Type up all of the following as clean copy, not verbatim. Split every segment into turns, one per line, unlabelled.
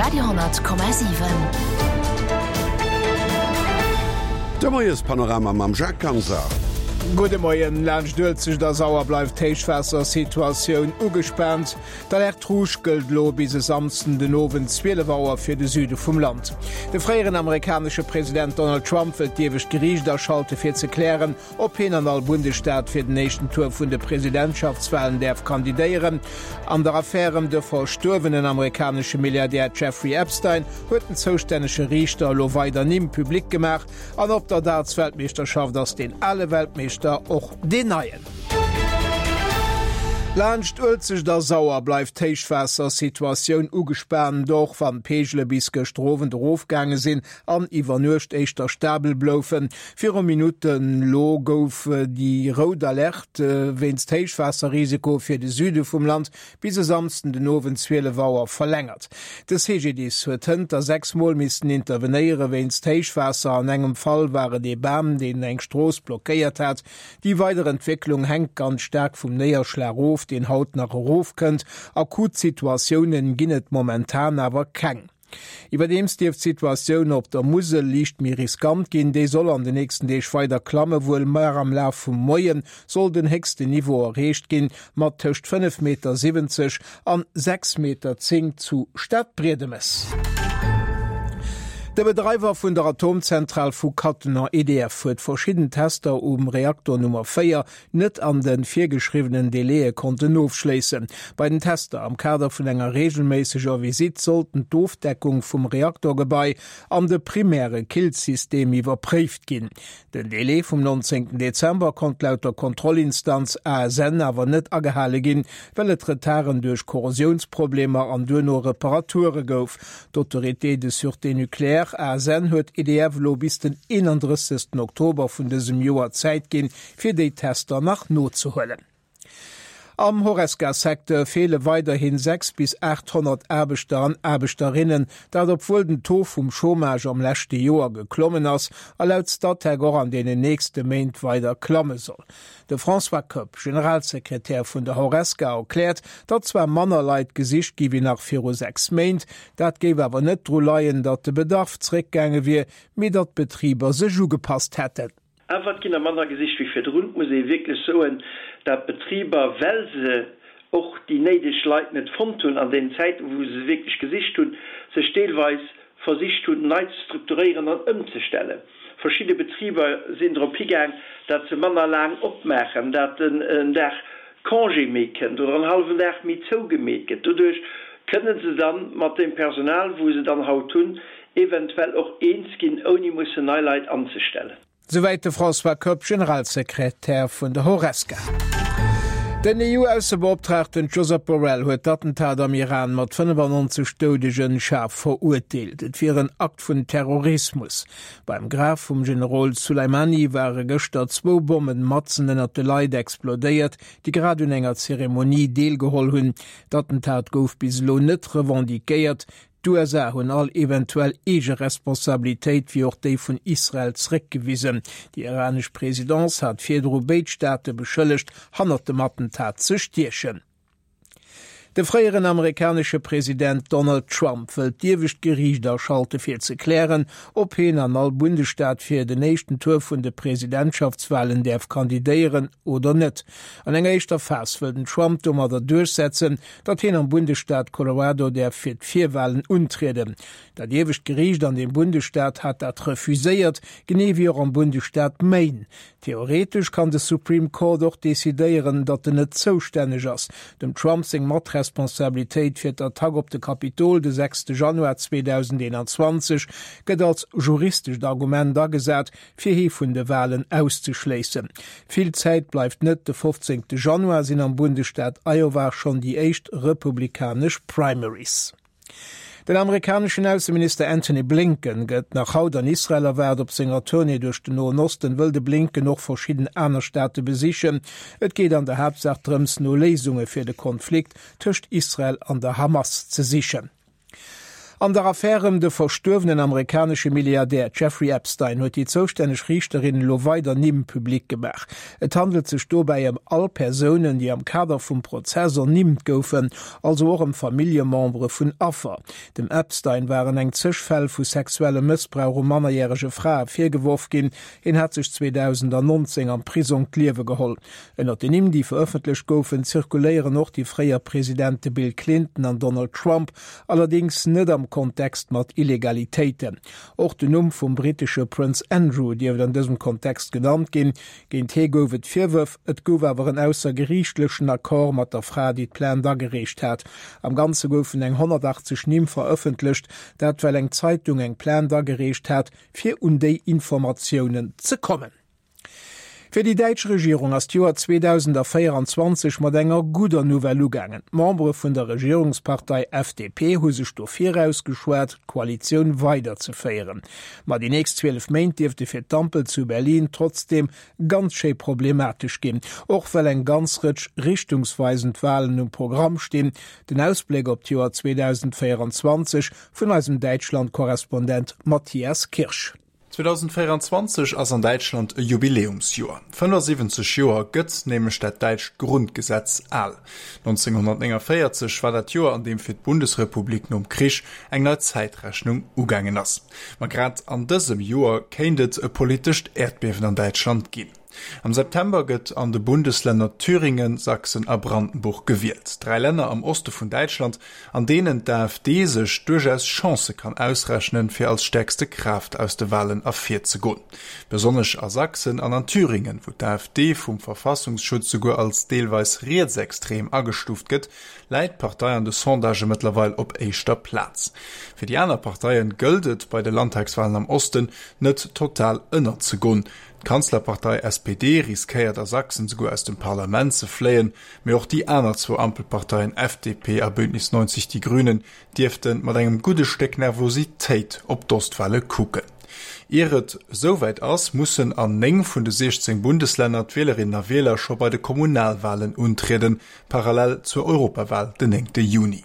Radio,7.
De Moiespanorama mam Jacques Ganser.
Gudde Moien. Laanscht Uelzecht a Sauer bleift d'Héichwaassersituatioun ugespaant. D'Alerte rouge gëllt elo bis e Samsden den Owend 12 Auer fir de Süde vum Land. De fréieren amerikanesche President Donald Trump wëllt d'iewescht Geriicht aschalte fir ze klären, Ob hien an all Bundesstaat fir den éischten Tour vun de Presidentschaftswalen däerf kandidéieren? An der Affär ëm de verstuerwenen amerikanesche Milliardär Jeffrey Epstein huet den zoustännege Riichter elo weider Nimm public gemaach. An op der Darts-Weltmeeschterschaft ass deen ale Weltmeeschter och deen neien. Laanscht Uelzecht a Sauer bleift d'Héichwaassersituatioun ugespaant, och wann d'Peegele bis gëschter Owend erofgaange sinn. an iwwer Nuecht éischter stabel bloufen. Viru Minutten elo gouf déi rout Alerte wéinst Héichwaasserrisiko fir de Süde vum Land bis e Samsden den Owend 12 Auer verlängert. De CGDIS huet hënter 6 Mol missten intervenéiere wéinst Héichwaasser. An engem Fall war et ee Bam, deen eng Strooss blockéiert hat. Déi weider Entwécklung hänkt ganz staark vum Néierschlag of, deen haut nach erofkënnt. Akut Situatiounen ginn et momentan awer keng. Iwwerdeems dierft d'Situatioun op der Musel liicht méi riskant ginn. Déi soll an de nächsten Deeg weider klamme, wuel mar am Laf vum Moie soll den héchsten Niveau erreecht ginn, mat tëscht 5,70 Meter an 6,10 Meter zu Stadbriedemes. De Bedreiwer vun der Atomzentral vu Cattenom, EDF, huet verschidden Tester um Reaktor Nummer 4 net an de virgeschriwwenen Délaië konnten ofschléissen. Bei den Tester am Kader vun enger reegelméisseger Visitt sollten d'Ofdeckung vum Reaktorgebai an de primäre Killsystem iwwerpréift ginn. Den Délai vum 19 Dezember konnt laut der Kontrollinstanz ASN awer net agehale ginn, well et Retarden duerch Korrosiounsproblemer an duerno Reparature gouf. D'Autorité de sûreté nucléaire, ASN, huet EDF elo bis den 31 Oktober vun dësem Joer Zäit ginn, fir déi Tester nach nozehuelen. Am Horesca-Secteur feele weiderhin 6 bis 800 Aarbechter an Aarbechterinnen, dat obwuel den Taux vum Chômage am leschte Joer geklommen ass a laut Statec och an deenen nächste Méint weider klamme soll. De François Koepp, Generalsekretär vun der Horesca, erkläert, datt zwar manner Leit gesicht gi wéi nach viru 6 Méint, dat géif awer net dru leien, datt de Bedarf zréckgaange wier, mee datt d'Betriber sech ugepasst hätten.
Awer et ginn der manner gesicht wéi virdrun. Et muss ee wierklech soen, dat d'Betriber, well se och déi néideg Leit net fonnt hunn an deenen Zäiten, wou se se wierklech gesicht hunn, sech deelweis versicht hunn, nei ze strukturéieren an ëmzestellen. Verschidde Betriber sinn drop higaang, dat se manner laang opmaachen, dat en Dag Congé méi kënnt oder en hallwen Dag méi zougemeet gëtt. Doduerch kënne se dann mat deem Personal, wou se dann haut hunn, eventuell och eens ginn, ouni mussen nei Leit anzestellen.
Souwäit de François Koepp, Generalsekretär vun der Horesca. Den EU-Aussebeoptraagten Josep Borrell huet d'Attentat am Iran mat 95 Doudegen schaarf verurteelt. Et wier en Akt vun Terrorismus. Beim Graf vum Generol Soleimani ware gëschter zwou Bommen matzen ënnert de Leit explodéiert, déi grad un enger Zeremonie deelgeholl hunn. D'Attentat gouf bis elo net revendiquéiert. D'USA hunn all eventuell eege Responsabilitéit, wéi och déi vun Israel, zeréckgewisen. Déi iranesch Presidence hat virdru béid Staate beschëllegt, hannert dem Attentat ze stiechen. De fréieren amerikanesche President Donald Trump wëllt d'iewescht Geriicht aschalte fir ze klären, ob hien an all Bundesstaat fir den éischten Tour vun de Presidentschaftswalen däerf kandidéieren oder net. An enger éischter Phas wëll den Trump domadder duerchsetzen, datt hien am Bundesstaat Colorado däerf fir d'Virwalen untrieden. Dat iewescht Geriicht an deem Bundesstaat hat dat refuséiert, genee wéi och am Bundesstaat Maine. Theoretesch kann de Supreme Court och decidéieren, datt en net zoustänneg ass. Dem Trump seng Matresponsabilitéit fir d'Attack op de Kapitol de 6 Januar 2021 gëtt als juristescht Argument agesat, fir hie vun de Walen auszeschléissen. Vill Zäit bleift net, de 15 Januar sinn am Bundesstaat Iowa schonn déi éischt republikanesch Primaries. Den amerikaneschen Ausseminister Antony Blinken gëtt nach haut an Israel erwaart. Op senger Tournée duerch den Noen Osten wëll de Blinken och verschidden aner Staate besichen. Et geet an der Haaptsaach drëms, no Léisunge fir de Konflikt tëscht Israel an der Hamas ze sichen. An der Affär ëm de verstuerwenen amerikanesche Milliardär Jeffrey Epstein huet déi zoustänneg Riichterin elo weider Nimm public gemaach. Et handelt sech dobäi ëm all Persounen, déi am Kader vum Prozess ernimmt goufen, also och ëm Familljemembere vun Affer. Dem Epstein waren eng zeg Fäll vu sexuellem Mëssbrauch u mannerjärege Frae virgeworf ginn. Hien hat sech 2019 am Prisong d'Liewe geholl. Ënnert den Nimm, déi verëffentlecht goufen, zirkuléieren och déi fréier Presidente Bill Clinton an Donald Trump, allerdéngs net am Kontext mat Illegalitéiten. Och den Numm vum brittesche Prënz Andrew dierft an dësem Kontext genannt ginn. Géint hie gouf et Virwërf, et gouf awer en aussergeriichtlechen Accord mat der Fra, déi d'Plainte agereecht hat. Am Ganze goufen eng 180 Nimm verëffentlecht, dat well eng Zeitung eng Plainte agereecht hat, fir un déi Informatiounen ze kommen. Fir déi däitsch Regierung ass d'Joer 2024 mat enger gudder Nouvelle ugaangen. D'Membere vun der Regierungspartei FDP hu sech dofir ausgeschwat, d'Koalitioun weiderzeféieren. Ma déi nächst 12 Méint dierfte fir d'Ampel zu Berlin trotzdeem ganz schéi problematesch ginn, och well eng ganz Rëtsch richtungsweisend Walen um Programm stinn. Den Ausbléck op d'Joer 2024 vun eisem Däitschland-Korrespondent Matthias Kirsch.
2024 ass an Däitschland e Jubiläumsjoer. 75 Joer gëtt nämlech dat däitscht Grundgesetz al. 1949 war dat Joer, an deem fir d'Bundesrepublik nom Krich eng nei Zäitrechnung ugaangen ass. Ma grad an dësem Joer kéint et e politescht Äerdbiewen an Däitschland ginn. Am September gëtt an de Bundeslänner Thüringen, Sachsen a Brandenburg gewielt. Dräi Länner am Oste vun Däitschland, an deenen d'AfD sech duerchaus Chancë kann ausrechnen, fir als stäerkste Kraaft aus de Walen ervirzegoen. Besonnesch a Sachsen an an Thüringen, wou d'AfD vum Verfassungsschutz souguer als deelweis rietsextrem agestuuft gëtt, läit d'Partei an de Sondagë mëttlerweil op éischter Plaz. Fir déi aner Parteie gëllt et, bei de Landtagswalen am Osten net total ënnerzegoen. D'Kanzlerpartei SPD riskéiert a Sachsen souguer aus dem Parlament ze fléien, mee och déi aner zwou Ampelparteien FDP a Bündnis 90 Die Grünen dierfte mat engem gudde Stéck Nervositéit op d'Ostwale kucken. Ier et esouwäit ass, mussen an 9 vun de 16 Bundeslänner d'Wielerinnen a Wieler scho bei de Kommunalwalen untrieden, parallel zur Europawal den 9 Juni.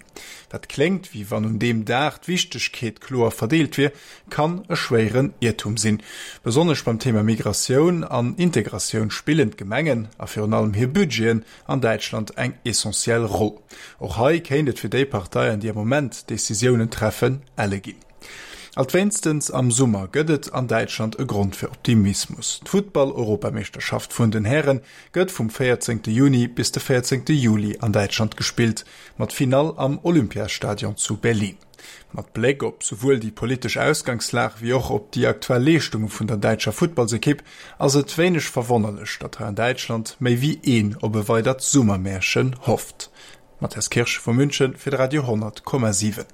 Wat kléngt, wéi wann un deem Dag d'Wichtegkeet kloer verdeelt wier, kann e schwéieren Iertum sinn. Besonnesch beim Thema Migratioun an Integratioun spillen d'Gemengen, a virun allem hir Budgeten, an Däitschland eng essentiell Roll. Och hei kéint et fir déi Parteien, déi am Moment Decisiounen treffen, elle ginn. Alt wéinstens am Summer gëtt et an Däitschland e Grond fir Optimismus, D'Futtball-Europameeschterschaft vun den Häre gëtt vum 14 Juni bis de 14 Juli an Däitschland gespillt, mat Finall am Olympiastadion zu Berlin. Mat Bléck op souwuel déi politesch Ausgangslag wéi och op déi aktuell Leeschtunge vun der däitscher Futtballsekipp ass et wéineg verwonnerlech, datt hei an Däitschland méi wéi een op e weidert Summermärchen hofft. Matthias Kirsch vu München fir de Radio 10,7.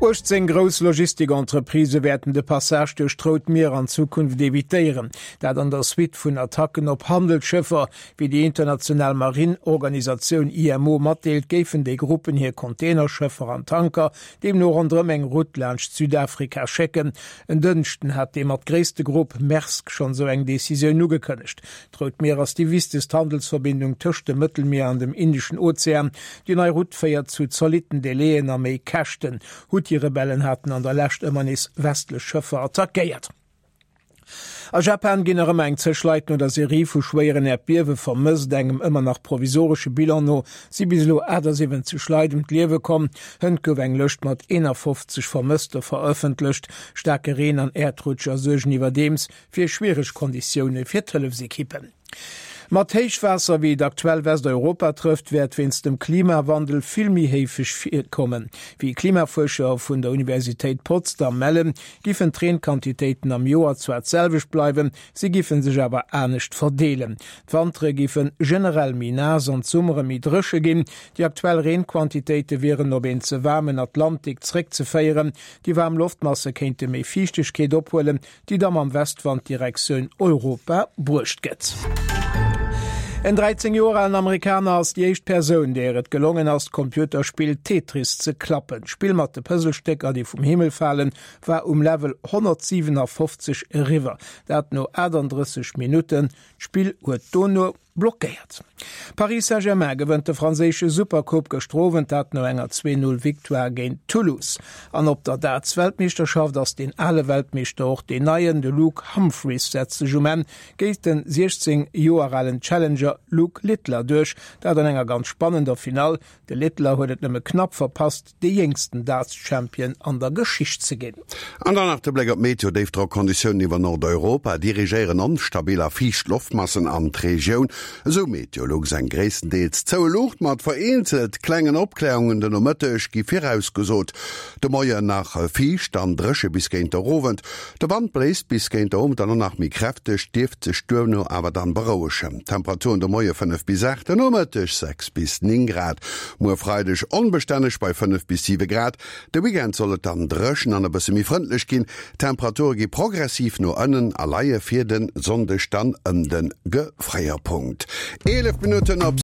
18 grouss Logistik-Entreprisë wäerten de Passage duerch d'Rout Mier an Zukunft evitéieren. Dat an der Suite vun Attacken op Handelsschëffer. Wéi déi international Marine-Organisatioun IMO matdeelt, géifen déi Gruppen hir Containerschëffer an Tanker deemno ronderëm eng Route laanscht Südafrika schécken. En Dënschden hat dee mat gréisste Grupp, Maersk, schonn esou eng Decisioun ugekënnegt. D'Rout Mier ass déi wichtegst Handelsverbindung tëscht dem Mëttelmier an dem Indeschen Ozean. Déi nei Route féiert zu zolitten Delaien a méi Käschten. Huthi-Rebellen haten an der Lescht ëmmer nees westlech Schëffer attackéiert. A Japan ginn nach ëmmer eng zeg Leit no der Serie vu schwéieren Äerdbiewe vermësst. Engem ëmmer nach provisoresche Bilan no si bis elo 78 Leit ëm d'Liewe komm. Hënt gouf eng Lëscht mat 51 Vermësste verëffentlecht. Staarke Reen an Äerdrutscher suergen iwwerdeems fir schwiereg Konditioune fir d'Hëllefsekippen. Mat Héichwaasser, wéi et aktuell Westeuropa trëfft, wäert wéinst dem Klimawandel vill méi héifeg virkommen. Wéi Klimafuerscher vun der Universitéit Potsdam mellen, giffen d'Reenquantitéiten am Joer zwar d'selwecht bleiwen, si giffen sech awer anescht verdeelen. D'Wantere giffe generell méi naass an d'Summere méi dréche ginn. Déi aktuell Reenquantitéite wieren op een ze waarmen Atlantik zréckzeféieren. Déi waarm Loftmasse kéinte méi Fiichtegkeet ophuelen, déi da mam Westwand Direktioun Europa bruecht gëtt. En 13 Joer alen Amerikaner ass déi éischt Persoun, där et gelongen ass, d'Computerspill Tetris ze klappen. D'Spill mat de Puzzlestécker, déi vum Himmel falen, war um Level 157 eriwwer, dat no 38 Minutten. D'Spill huet dono Blockéiert. Paris Saint-Germain gewënnt de franséische Supercoupe gëschter Owend, dat no enger 2, 0 Victoire géint Toulouse. An op der Darts-Weltmeeschterschaft ass deen ale Weltmeeschter och deen neien. De Luke Humphries setzt sech um Enn géint den 16 Joer alen Challenger Luke Littler duerch, dat an enger ganz spannender Finall. De Littler huet et nëmme knapp verpasst, dee jéngsten Darts-Champion an der Geschicht ze ginn.
An dann nach de Bléck op d'Meteo, Déifdrockkonditiounen iwwer Nordeuropa dirigéieren onstabil a fiicht Loftmassen an d'Regioun. Esou Meteolux. Eng gréisstendeels zoue Luucht mat vereenzelt klengen Opklärungen de Nomëtteg gi virausgesot. De Moien nach fiicht an dréche bis géint der Owend. De Wand bléist bis géint der Owend dann och nach méi kräfteg, dierft sech duerno awer dann berouegen. Temperaturen de Moie 5 bis 8, de Nomëtteg 6 bis 9 Grad. Muer Freideg onbestänneg bei 5 bis 7 Grad. De Weekend soll et dann dréchen an e bësse méi frëndlech ginn. D'Temperature gi progressiv no ënnen a leie fir de Sonndeg dann ëm de Gefréierpunkt. 11 Minutten op.